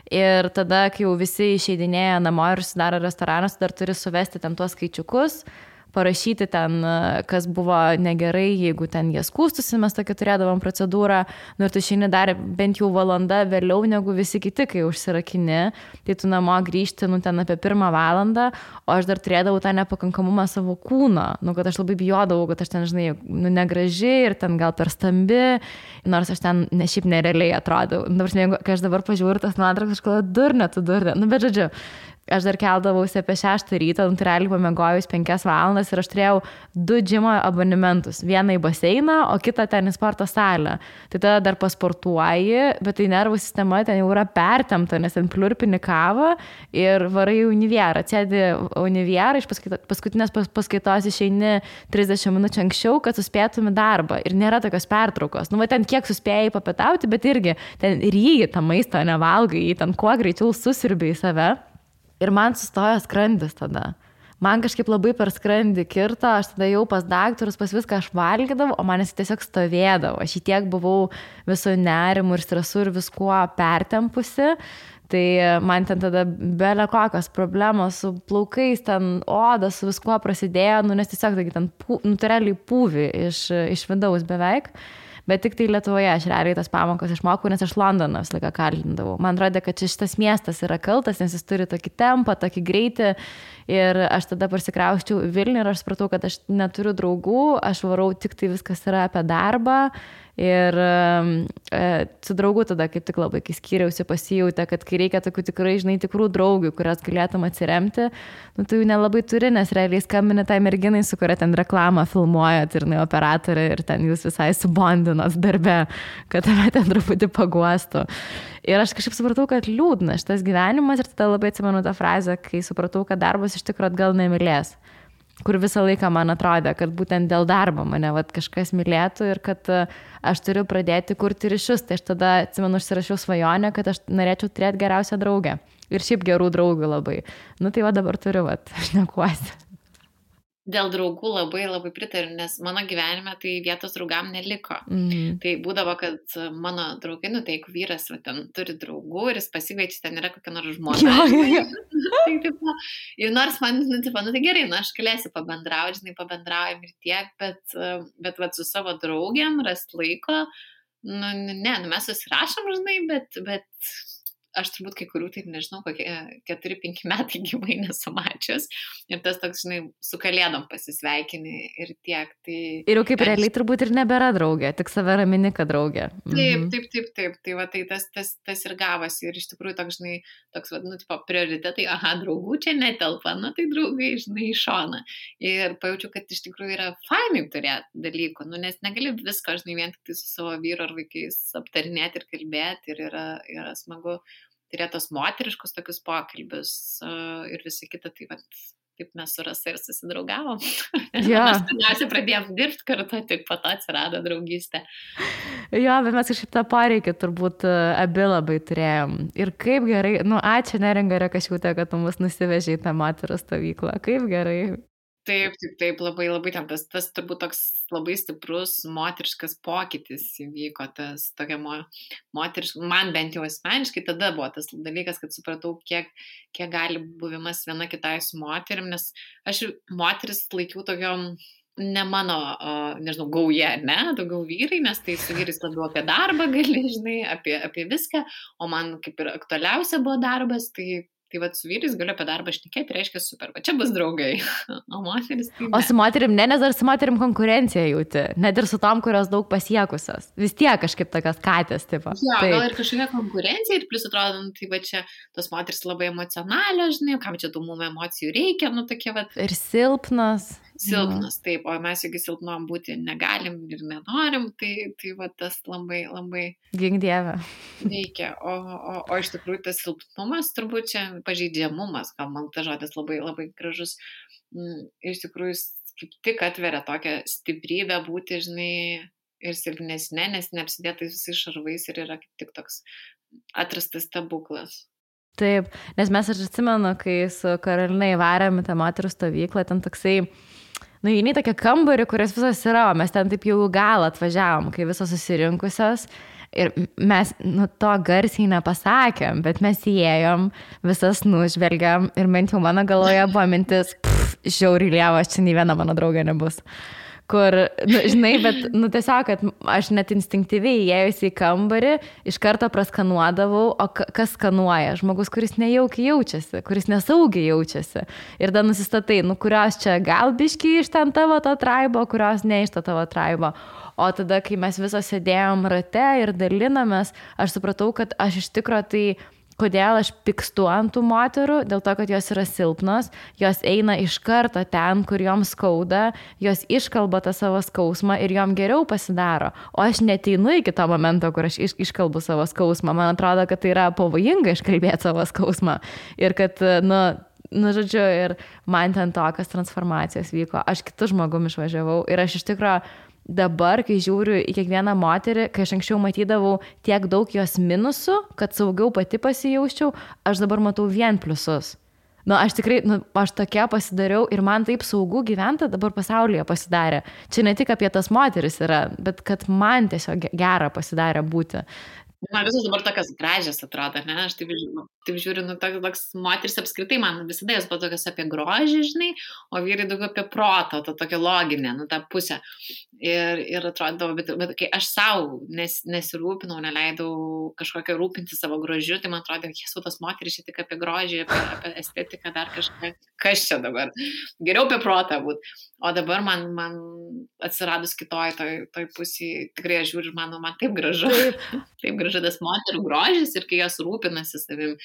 Ir tada, kai jau visi išeidinėja namo ir sudaro restoranas, dar turi suvesti ten tuos skaičiukus, parašyti ten, kas buvo negerai, jeigu ten jie skūstusi, mes tokia turėdavom procedūrą, ir tu išeini dar bent jau valanda vėliau negu visi kiti, kai užsirakini, tai tu namo grįžti, ten apie 1 valandą, o aš dar turėdavau tą nepakankamumą savo kūno, kad aš labai bijodavau, kad aš ten, žinai, negraži ir ten gal per stambi, nors aš ten šiaip nerealiai atrodau. Kai aš dabar pažiūriu tas nuotraukas, aš kalbu, durnė, bet žodžiu. Aš dar keldavausi apie 6 ryto, tai realiai pamiegojus 5 valandas ir aš turėjau 2 džimo abonementus. Vieną į baseiną, o kitą ten į sporto salę. Tai tada dar pasportuoji, bet tai nervų sistema ten jau yra pertempta, nes ten pliurpini kavą ir varai į univierą. Atsėdi univierą, iš paskutinės paskaitos išeini 30 minučių anksčiau, kad suspėtum į darbą. Ir nėra tokios pertraukos. Ten kiek suspėjai papietauti, bet irgi ten ryji tą maistą, nevalgai, jį ten kuo greičiau susirbi į save. Ir man sustojo skrandis tada. Man kažkaip labai per skrandį kirto, aš tada jau pas daktarus, pas viską aš valgydavau, o man jis tiesiog stovėdavo. Aš į tiek buvau viso nerimu ir stresu ir viskuo pertempusi. Tai man ten tada belė kokios problemos su plaukais, ten oda, su viskuo prasidėjo, nes tiesiog ten realiai pūvi iš vidaus beveik. Bet tik tai Lietuvoje aš realiai tas pamokas išmokau, nes aš Londoną visą laiką kalindavau. Man rodė, kad šitas miestas yra kaltas, nes jis turi tokį tempą, tokį greitį. Ir aš tada pasikrausčiau į Vilnių ir aš supratau, kad aš neturiu draugų, aš varau tik tai viskas yra apie darbą. Ir su draugu tada kaip tik labai, kai skyriausi, pasijautė, kad kai reikia tokių tikrai, žinai, tikrų draugių, kurias galėtum atsiremti, tu jų nelabai turi, nes realiai skambini tai merginai, su kuria ten reklamą filmuojat ir operatorė ir ten jūs visai subondinot darbe, kad tave ten truputį paguostų. Ir aš kažkaip supratau, kad liūdna šitas gyvenimas ir tada labai atsimenu tą frazę, kai supratau, kad darbas iš tikrųjų atgal nemylės. Kur visą laiką man atrodė, kad būtent dėl darbo mane kažkas mylėtų ir kad aš turiu pradėti kurti ryšius. Tai aš tada, atsimenu, užsirašiau svajonę, kad aš norėčiau turėti geriausią draugę. Ir šiaip gerų draugų labai. Tai va dabar turiu, aš nekuosi. Dėl draugų labai labai pritariu, nes mano gyvenime tai vietos draugam neliko. Tai būdavo, kad mano draugai, tai jeigu vyras ten turi draugų ir jis pasikviečia, ten yra kokia nors žmona. Tai, tipo, ir nors man, tai gerai, aš galėsiu pabendrauti, pabendraujam ir tiek, bet su savo draugiam rast laiko, mes susirašom, bet aš turbūt kai kurių, tai nežinau, kokie 4-5 metai gyvai nesamačius. Ir tas toks, su kalėdom pasisveikini ir tiek. Tai, ir jau kaip realiai turbūt ir nebėra draugė, tik save ramini, kad draugė. Taip. Tai va, tai tas ir gavosi. Ir iš tikrųjų toks, prioritetai, draugų čia netelpa, tai draugai, į šoną. Ir pajaučiu, kad iš tikrųjų yra fainai turėti dalykų, nes negali visko, vien tik tai su savo vyru ar vaikais aptarinėti ir kalbėti ir yra smagu turėti tos moteriškus tokius pokalbius ir visi kita, tai taip mes su Rasa ir susidraugavom. Jo. Mes pirmiausia pradėjom dirbti kartu, tik po to atsirado draugystė. Jo, bet mes kažkaip tą poreikį turbūt abi labai turėjom. Ir kaip gerai, ačiū Neringa Rekašiūtė, kad tu mus nusivežė į tą moterų stovyklą. Kaip gerai. Taip, labai, labai ten tas turbūt toks labai stiprus moteriškas pokytis įvyko, tas tokia moteriška, man bent jau asmeniškai tada buvo tas dalykas, kad supratau, kiek gali buvimas viena kitai su moterim, nes aš moteris laikiau tokiom ne mano, nežinau, gauja, ne, daugiau vyrai, nes tai su vyrais labiau apie darbą gali, žinai, apie viską, o man kaip ir aktualiausia buvo darbas, tai su vyrais galiu apie darbą šnekėti, reiškia super, va čia bus draugai, o moteris tai ne. O su moterim ne, nes dar su moterim konkurencija jauti, net ir su tom, kurios daug pasiekusios. Vis tiek kažkaip tokias katės, tipo. Jo, gal ir kažkokia konkurencija ir plus atrodo, tai va čia tos moteris labai emocionalios, žinai, kam čia tų mum emocijų reikia, tokie va. Ir silpnas. Silpnas, taip, o mes jeigu silpnom būti negalim ir nenorim, tai va tas labai, labai gink dieve reikia, o iš tikrųjų tas silpnumas, turbūt čia pažeidžiamumas, gal man tas žodis labai, labai gražus, iš tikrųjų kaip tik atveria tokią stiprybę būti, žinai, ir silpnesnė, nes neapsidėtais visais šarvais ir yra kaip tik toks atrastas stebuklas. Taip, nes mes aš atsimenu, kai su Karolina įvarėm į tą moterų stovyklą, ten toksai įeini tokia kambarį, kurias visos yra, o mes ten taip jau gal atvažiavom, kai visos susirinkusios ir mes to garsiai nepasakėm, bet mes įėjom, visas nužvelgiam ir bent jau mano galvoje buvo mintis, žiauriai lievas, čia nei viena mano draugė nebus. Kur, žinai, bet, tiesiog, kad aš net instinktyviai įėjusi į kambarį, iš karto praskanuodavau, o kas skanuoja? Žmogus, kuris nejaukiai jaučiasi, kuris nesaugiai jaučiasi. Ir tada nusistatai, kurios čia gal biški iš ten tavo to traibo, kurios ne iš to tavo traibo. O tada, kai mes visos sėdėjom rate ir dalinamės, aš supratau, kad aš iš tikro tai kodėl aš pykstu ant tų moterų, dėl to, kad jos yra silpnos, jos eina iš karto ten, kur joms skauda, jos iškalba tą savo skausmą ir jom geriau pasidaro. O aš neteinu iki to momento, kur aš iškalbu savo skausmą. Man atrodo, kad tai yra pavojinga iškalbėti savo skausmą. Ir kad, žodžiu, ir man ten tokios transformacijos vyko. Aš kitu žmogum išvažiavau ir aš iš tikrųjų dabar, kai žiūriu į kiekvieną moterį, kai aš anksčiau matydavau tiek daug jos minusų, kad saugiau pati pasijausčiau, aš dabar matau vien pliusus. Aš tikrai, aš tokia pasidariau ir man taip saugu gyventi dabar pasaulyje pasidarė. Čia ne tik apie tas moteris yra, bet kad man tiesiog gera pasidarė būti. Man visos dabar tokios gražios atrodo, ne? Aš taip žiūriu, toks moteris apskritai, man visada jos buvo tokios apie grožį, žinai, o vyrai daugiau apie protą, tokia loginė, tą pusę. Ir atrodo, bet kai aš savo nesirūpinau, neleidau kažkokią rūpinti savo grožiu, tai man atrodo, jesu, tos moteris čia tik apie grožį, apie estetiką, dar kažką, kas čia dabar. Geriau apie protą būt. O dabar man atsiradus kitoj toj pusėje, tikrai aš žiūriu, man taip gražu. Taip gražu tas moterų grožis ir kai jos rūpinasi savim,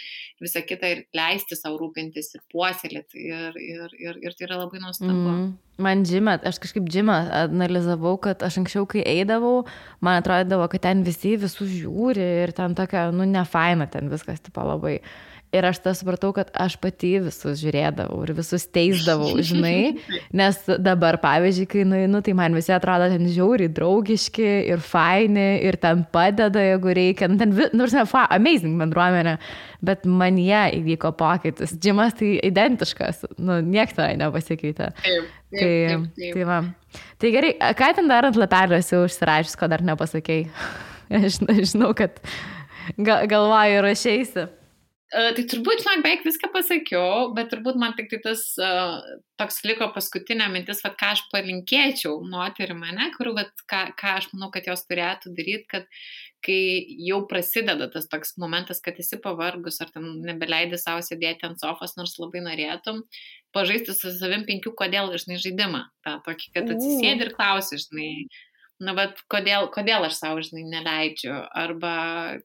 visą kitą ir leisti savo rūpintis ir puoselėti ir tai yra labai nuostabu. Man džime, aš kažkaip džime analizavau, kad aš anksčiau, kai eidavau, man atrodydavo, kad ten visi visus žiūri ir ten tokia, nefaina ten viskas, tipo labai. Ir aš tą supratau, kad aš pati visus žiūrėdavau ir visus teisdavau, žinai, nes dabar, pavyzdžiui, kai nueinu, tai man visi atrodo ten žiauriai draugiški ir faini ir ten padeda, jeigu reikia, ten, amazing bendruomenė, bet man jie įvyko pokytis. Džimas tai identiškas, nieks to nepasikeitė. Tai va. Tai gerai, ką ten dar ant lapelio esi užsirašęs, ko dar nepasakei? Aš žinau, kad galvoju rašeisi. Tai turbūt, beveik viską pasakiau, bet turbūt man tik tai tas toks liko paskutinė mintis, ką aš palinkėčiau moterim, kur ką aš manau, kad jos turėtų daryti, kad kai jau prasideda tas toks momentas, kad esi pavargus ar ten nebeleidi savo sėdėti ant sofos, nors labai norėtum, pažaisti su savim 5 kodėl, žinai, žaidimą. Ta tokį, kad atsisėdi ir klausi, žinai, bet kodėl aš savo, žinai, neleidžiu, arba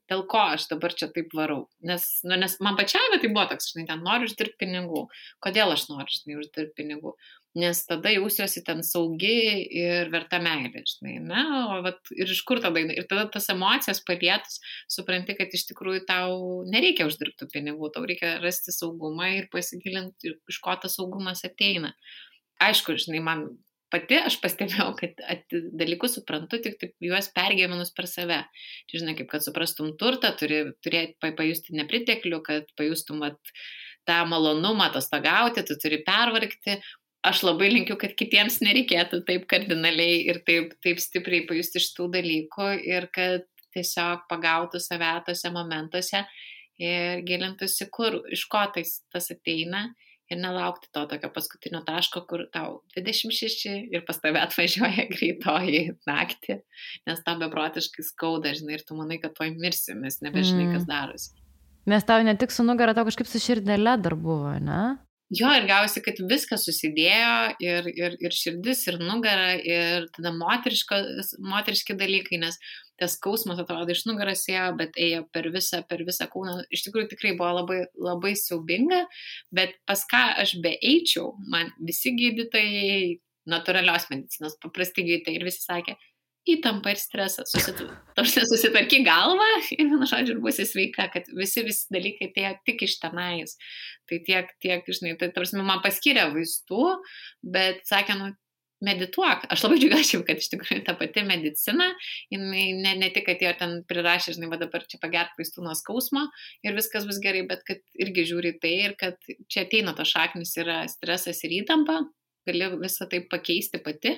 dėl ko aš dabar čia taip varau. Nes man pačiai, bet tai buvo toks, žinai, ten noriu uždirbti pinigų. Kodėl aš noriu, žinai, uždirbti pinigų. nes tada jausiuosi ten saugi ir verta meilė, žinai, ne? O ir iš kur tada, ir tada tas emocijas palietus, supranti, kad iš tikrųjų tau nereikia uždirbti pinigų, tau reikia rasti saugumą ir pasigilinti, iš ko tas saugumas ateina. Aišku, žinai, man pati aš pastebėjau, kad dalykus suprantu, tik juos pergyvenus per save. Čia, žinai, kaip kad suprastum turtą, turi pajusti nepriteklių, kad pajustum tą malonumą atostogauti, tu turi pervargti. Aš labai linkiu, kad kitiems nereikėtų taip kardinaliai ir taip stipriai pajusti šitų dalykų ir kad tiesiog pagautų save tose momentuose ir gilintųsi, iš ko tas ateina ir nelaukti to tokio paskutinio taško, kur tau 26 ir pas tave atvažiuoja greitoji naktį, nes tau beprotiškai skauda, žinai, ir tu manai, kad tuoj mirsi, nes nebežinai, kas darosi. Nes tau ne tik su nugara, tau kažkaip su širdele dar buvo, ne? Jo, ir gausi, kad viskas susidėjo ir širdis, ir nugara, ir tada moteriški dalykai, nes tas skausmas atrodo iš nugaras ėjo, bet ėjo per visą kūną. Iš tikrųjų tikrai buvo labai, labai siaubinga, bet pas ką aš beeičiau, man visi gydytojai, natūralios medicinos, paprasti gydytojai ir visi sakė, įtampa ir stresas, susitvarky galvą ir vienu žodžiu ir būsi sveika, kad visi dalykai tai tik iš tenais. Tai tiek, žinai, tai tarsi man paskyrė vaistų, bet sakė, medituok. Aš labai džiaugiuosi, kad iš tikrųjų ta pati medicina, jinai ne tik, kad jie ten prirašė, žinai, dabar čia pagerk vaistų nuo skausmo ir viskas bus gerai, bet kad irgi žiūri tai ir kad čia ateina to šaknis yra stresas ir įtampa, gali visą tai pakeisti pati,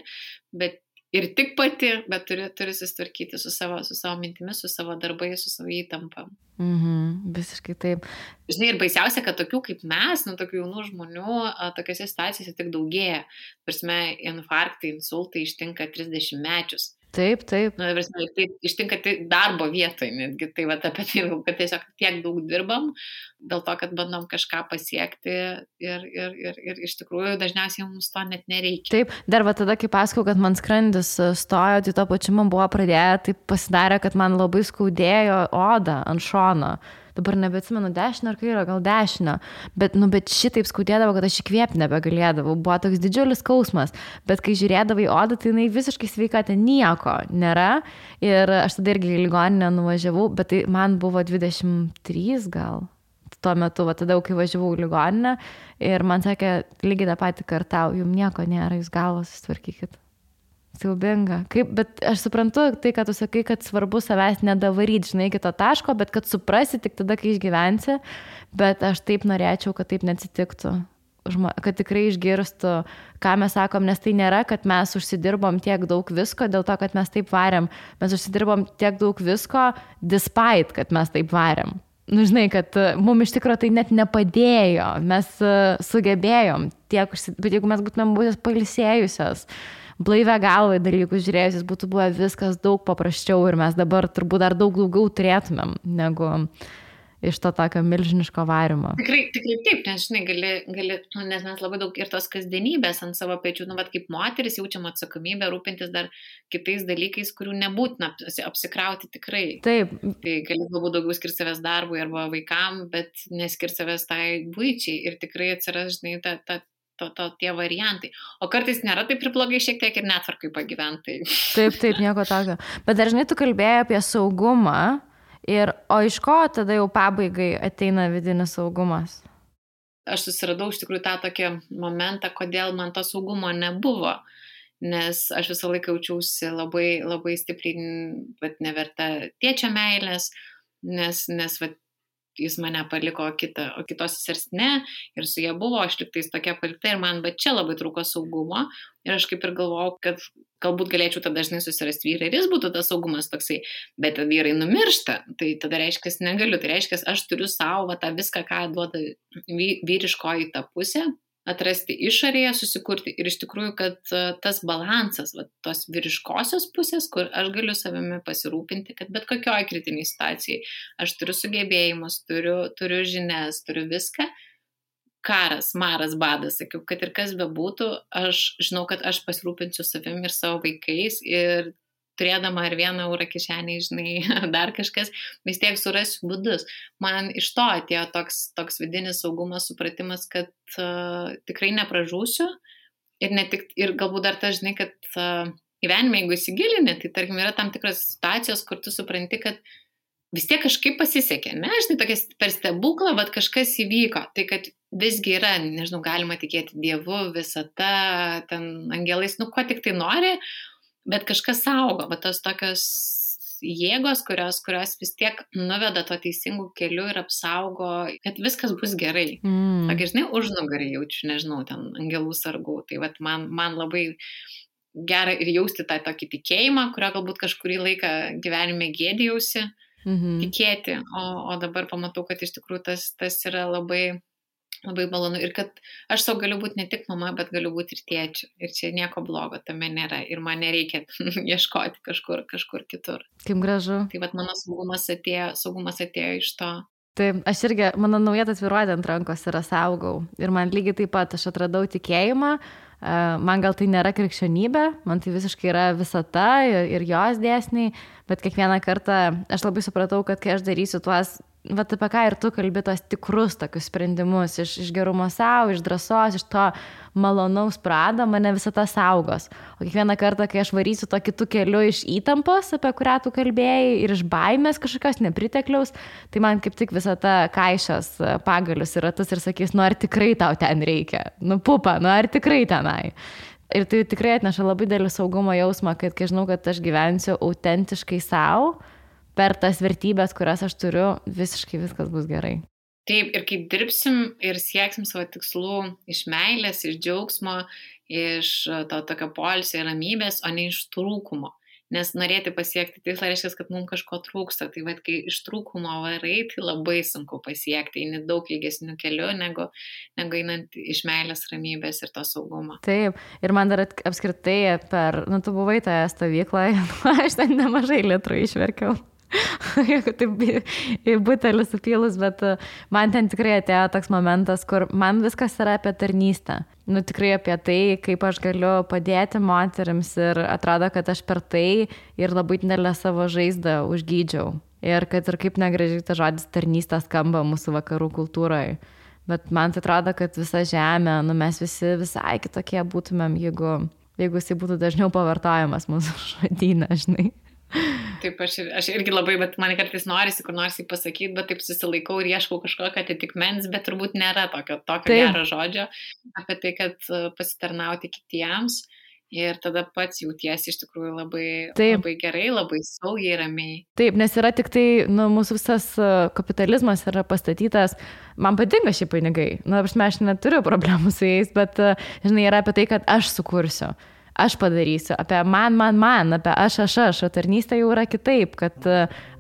bet ir tik pati, bet turi susitvarkyti su savo mintimis, su savo darbais, su savo įtampa. Visiškai taip. Žinai, ir baisiausia, kad tokių kaip mes, tokių jaunų žmonių, tokiose situacijose tik daugėja. Prasme, infarktai, insultai ištinka 30 mečius. Taip. Prasme, tai ištinka darbo vietoje netgi. Tai apie tai, kad tiesiog tiek daug dirbam, dėl to, kad bandom kažką pasiekti ir iš tikrųjų dažniausiai mums to net nereikia. Taip, dar tada, kai pasakau, kad man skrandis stojo, tai to pačiu man buvo pradėję, tai pasidarė, kad man labai skaudėjo odą ant šono. Dabar nebeatsimenu dešinę ar kairę, gal dešinę, bet šitaip skaudėdavo, kad aš įkvėpti nebegalėdavau, buvo toks didžiulis skausmas, bet kai žiūrėdavai odą, tai jinai visiškai sveika, ten nieko nėra ir aš tada irgi į ligoninę nuvažiavau, bet tai man buvo 23 gal tuo metu, tada kai važiavau į ligoninę ir man sakė, lygiai tą patį kartau, jums nieko nėra, jūs galvos susitvarkykit. Siaubinga. Bet aš suprantu tai, kad tu sakai, kad svarbu savęs nedavaryti, žinai, iki to taško, bet kad suprasi tik tada, kai išgyvensi, bet aš taip norėčiau, kad taip neatsitiktų. Kad tikrai išgirstų, ką mes sakom, nes tai nėra, kad mes užsidirbom tiek daug visko dėl to, kad mes taip varėm. Mes užsidirbom tiek daug visko despite, kad mes taip varėm. Žinai, kad mums iš tikrųjų tai net nepadėjo. Mes sugebėjom tiek, bet jeigu mes būtumėm būtis pailsėjusios, blaivę galvą dalykus žiūrėjusis, būtų buvę viskas daug paprasčiau ir mes dabar turbūt dar daug daugiau turėtumėm negu iš to tokio milžiniško varimo. Tikrai taip, nes žinai, gali, nes mes labai daug ir tos kasdienybės ant savo pečių, kaip moteris jaučiam atsakomybę rūpintis dar kitais dalykais, kurių nebūtina apsikrauti tikrai. Taip. Tai gali galbūt daugiau skirti savęs darbui arba vaikam, bet neskirti savęs tai buičiai ir tikrai atsiras, žinai, tie variantai. O kartais nėra taip ir blogai šiek tiek ir netvarkai pagyventai. Taip, nieko tokio. Bet dažnai tu kalbėjai apie saugumą, o iš ko tada jau pabaigai ateina vidinis saugumas? Aš susiradau iš tikrųjų tą tokį momentą, kodėl man to saugumo nebuvo. Nes aš visą laiką jaučiausi labai, labai stipriai, bet neverta tėčio meilės, nes jis mane paliko o kitos sesers ne, ir su jie buvo, aš liktais tokia palikta ir man, bet čia labai trūko saugumo ir aš kaip ir galvojau, kad galbūt galėčiau tada dažnai susirasti vyrą ir jis būtų tas saugumas toksai, bet vyrai numiršta, tai tada reiškia, negaliu, tai reiškia, aš turiu savo tą viską, ką duoda vyriškoji ta pusė, atrasti išorėje, susikurti ir iš tikrųjų, kad tas balansas, tos vyriškosios pusės, kur aš galiu savimi pasirūpinti, kad bet kokioj kritiniai situacijai aš turiu sugebėjimus, turiu žinias, turiu viską, karas, maras, badas, sakiau, kad ir kas bebūtų, aš žinau, kad aš pasirūpinsiu savimi ir savo vaikais ir turėdama ar 1 eurą kišenėje, žinai, dar kažkas, vis tiek surasiu būdus. Man iš to atėjo toks vidinis saugumas, supratimas, kad tikrai nepražūsiu, ir galbūt dar tas, žinai, kad gyvenime, jeigu įsigilini, tai tarkim yra tam tikras situacijos, kur tu supranti, kad vis tiek kažkaip pasisekė, ne, žinai, tokias per stebuklą, bet kažkas įvyko, tai kad visgi yra, nežinau, galima tikėti Dievu, visata, ten angelais, nu, ko tik tai nori, bet kažkas saugo, bet tos tokios jėgos, kurios vis tiek nuveda to teisingų kelių ir apsaugo, kad viskas bus gerai. Tokia, žinai, užnugarį jaučiu, nežinau, ten angelų sargų. Tai vat man labai gera ir jausti tą tokį tikėjimą, kurio galbūt kažkurį laiką gyvenime gėdijausi tikėti, o dabar pamatau, kad iš tikrųjų tas yra labai labai malonu ir kad aš savo galiu būti ne tik mama, bet galiu būti ir tėčiu. Ir čia nieko blogo tame nėra. Ir man nereikia ieškoti kažkur kitur. Kaip gražu. Tai vat mano saugumas atėjo iš to. Taip, aš irgi, mano nauja tatuiruotė ant rankos yra saugau. Ir man lygiai taip pat, aš atradau tikėjimą. Man gal tai nėra krikščionybė, man tai visiškai yra visata ir jos dėsniai, bet kiekvieną kartą aš labai supratau, kad kai aš darysiu tuos, vat apie ką ir tu kalbi, tos tikrus tokius sprendimus, iš gerumo savo, iš drąsos, iš to malonaus prado, mane visata saugos. O kiekvieną kartą, kai aš varysiu to kitų keliu iš įtampos, apie kurią tu kalbėjai, ir iš baimės kažkokios nepritekliaus, tai man kaip tik visata kaišios pagalius ir ratus ir sakys, nu ar tikrai tau ten reikia, nu pupa, nu ar tikrai tenai. Ir tai tikrai atneša labai didelį saugumo jausmą, kad kai žinau, kad aš gyvensiu autentiškai savo, per tas vertybės, kurias aš turiu, visiškai viskas bus gerai. Taip, ir kaip dirbsim ir sieksim savo tikslų iš meilės, iš džiaugsmo, iš to tokio poilsio ir ramybės, o ne iš trūkumo. Nes norėti pasiekti tikslą reiškia, kad mums kažko trūksta. Tai vad, kai iš trūkumo varai, tai labai sunku pasiekti. Eini daug ilgesnių kelių, negu einant iš meilės, ramybės ir to saugumo. Taip, ir man dar apskritai tu buvai toje stovykloje, aš ten nemažai litrų išverkiau. Jeigu taip į butelį supylus, bet man ten tikrai atėjo toks momentas, kur man viskas yra apie tarnystę. Nu tikrai apie tai, kaip aš galiu padėti moterims ir atrodo, kad aš per tai ir labai didelę savo žaizdą užgydžiau. Ir kad ir kaip negražiai tas žodis tarnystė skamba mūsų vakarų kultūroje. Bet man tai atrodo, kad visa žemė, nu mes visi visai kitokie būtumėm, jeigu jisai būtų dažniau pavartojamas mūsų žodyne, žinai. Taip, aš irgi labai, bet man kartais norisi, kur nors jį pasakyti, bet taip susilaikau ir ieškau kažkokio atitikmens, bet turbūt nėra tokio gero žodžio apie tai, kad pasitarnauti kitiems ir tada pats jautiesi iš tikrųjų labai gerai, labai saugiai, ramiai. Taip, nes yra tik tai, mūsų visas kapitalizmas yra pastatytas, man patinka šie pinigai, aš neturiu problemų su jais, bet, žinai, yra apie tai, kad aš sukursiu. Aš padarysiu, apie man, apie aš, o tarnystė jau yra kitaip, kad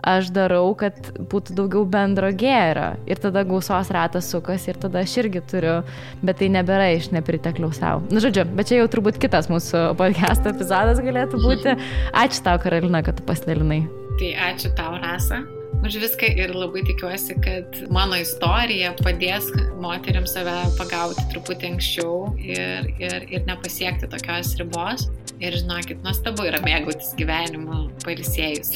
aš darau, kad būtų daugiau bendro gėrio ir tada gausos ratas sukas ir tada aš irgi turiu, bet tai nebėra iš nepritekliaus savo. Žodžiu, bet čia jau turbūt kitas mūsų podcast epizodas galėtų būti. Ačiū tau, Karolina, kad tu pasidalinai. Tai ačiū tau, Rasa, už viską ir labai tikiuosi, kad mano istorija padės moteriams save pagauti truputį anksčiau ir nepasiekti tokios ribos. Ir žinokit, nuostabu yra mėgautis gyvenimu pailsėjus.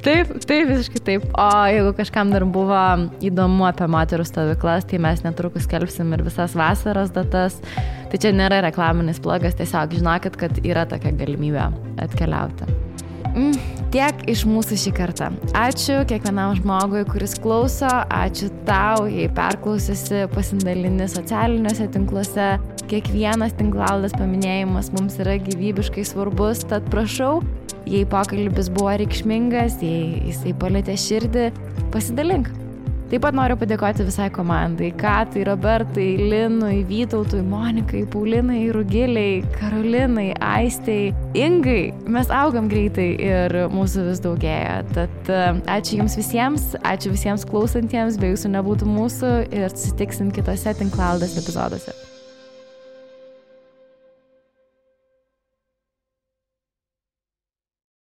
Taip, visiškai taip. O jeigu kažkam dar buvo įdomu apie moterų stovyklas, tai mes netrukus skelbsim ir visas vasaros datas. Tai čia nėra reklaminis blogas, tiesiog žinokit, kad yra tokia galimybė atkeliauti. Tiek iš mūsų šį kartą. Ačiū kiekvienam žmogui, kuris klauso. Ačiū tau, jei perklausysi, pasidalini socialiniuose tinkluose. Kiekvienas tinklalaidės paminėjimas mums yra gyvybiškai svarbus, tad prašau, jei pokalbis buvo reikšmingas, jei jisai palietė širdį, pasidalink. Taip pat noriu padėkoti visai komandai, Katai, Robertai, Linui, Vytautui, Monikai, Paulinai, Rugiliai, Karolinai, Aistei, Ingai. Mes augam greitai ir mūsų vis daugėja. Tad ačiū jums visiems, ačiū visiems klausantiems, be jūsų nebūtų mūsų ir susitiksim kitose tinklalaidės epizoduose.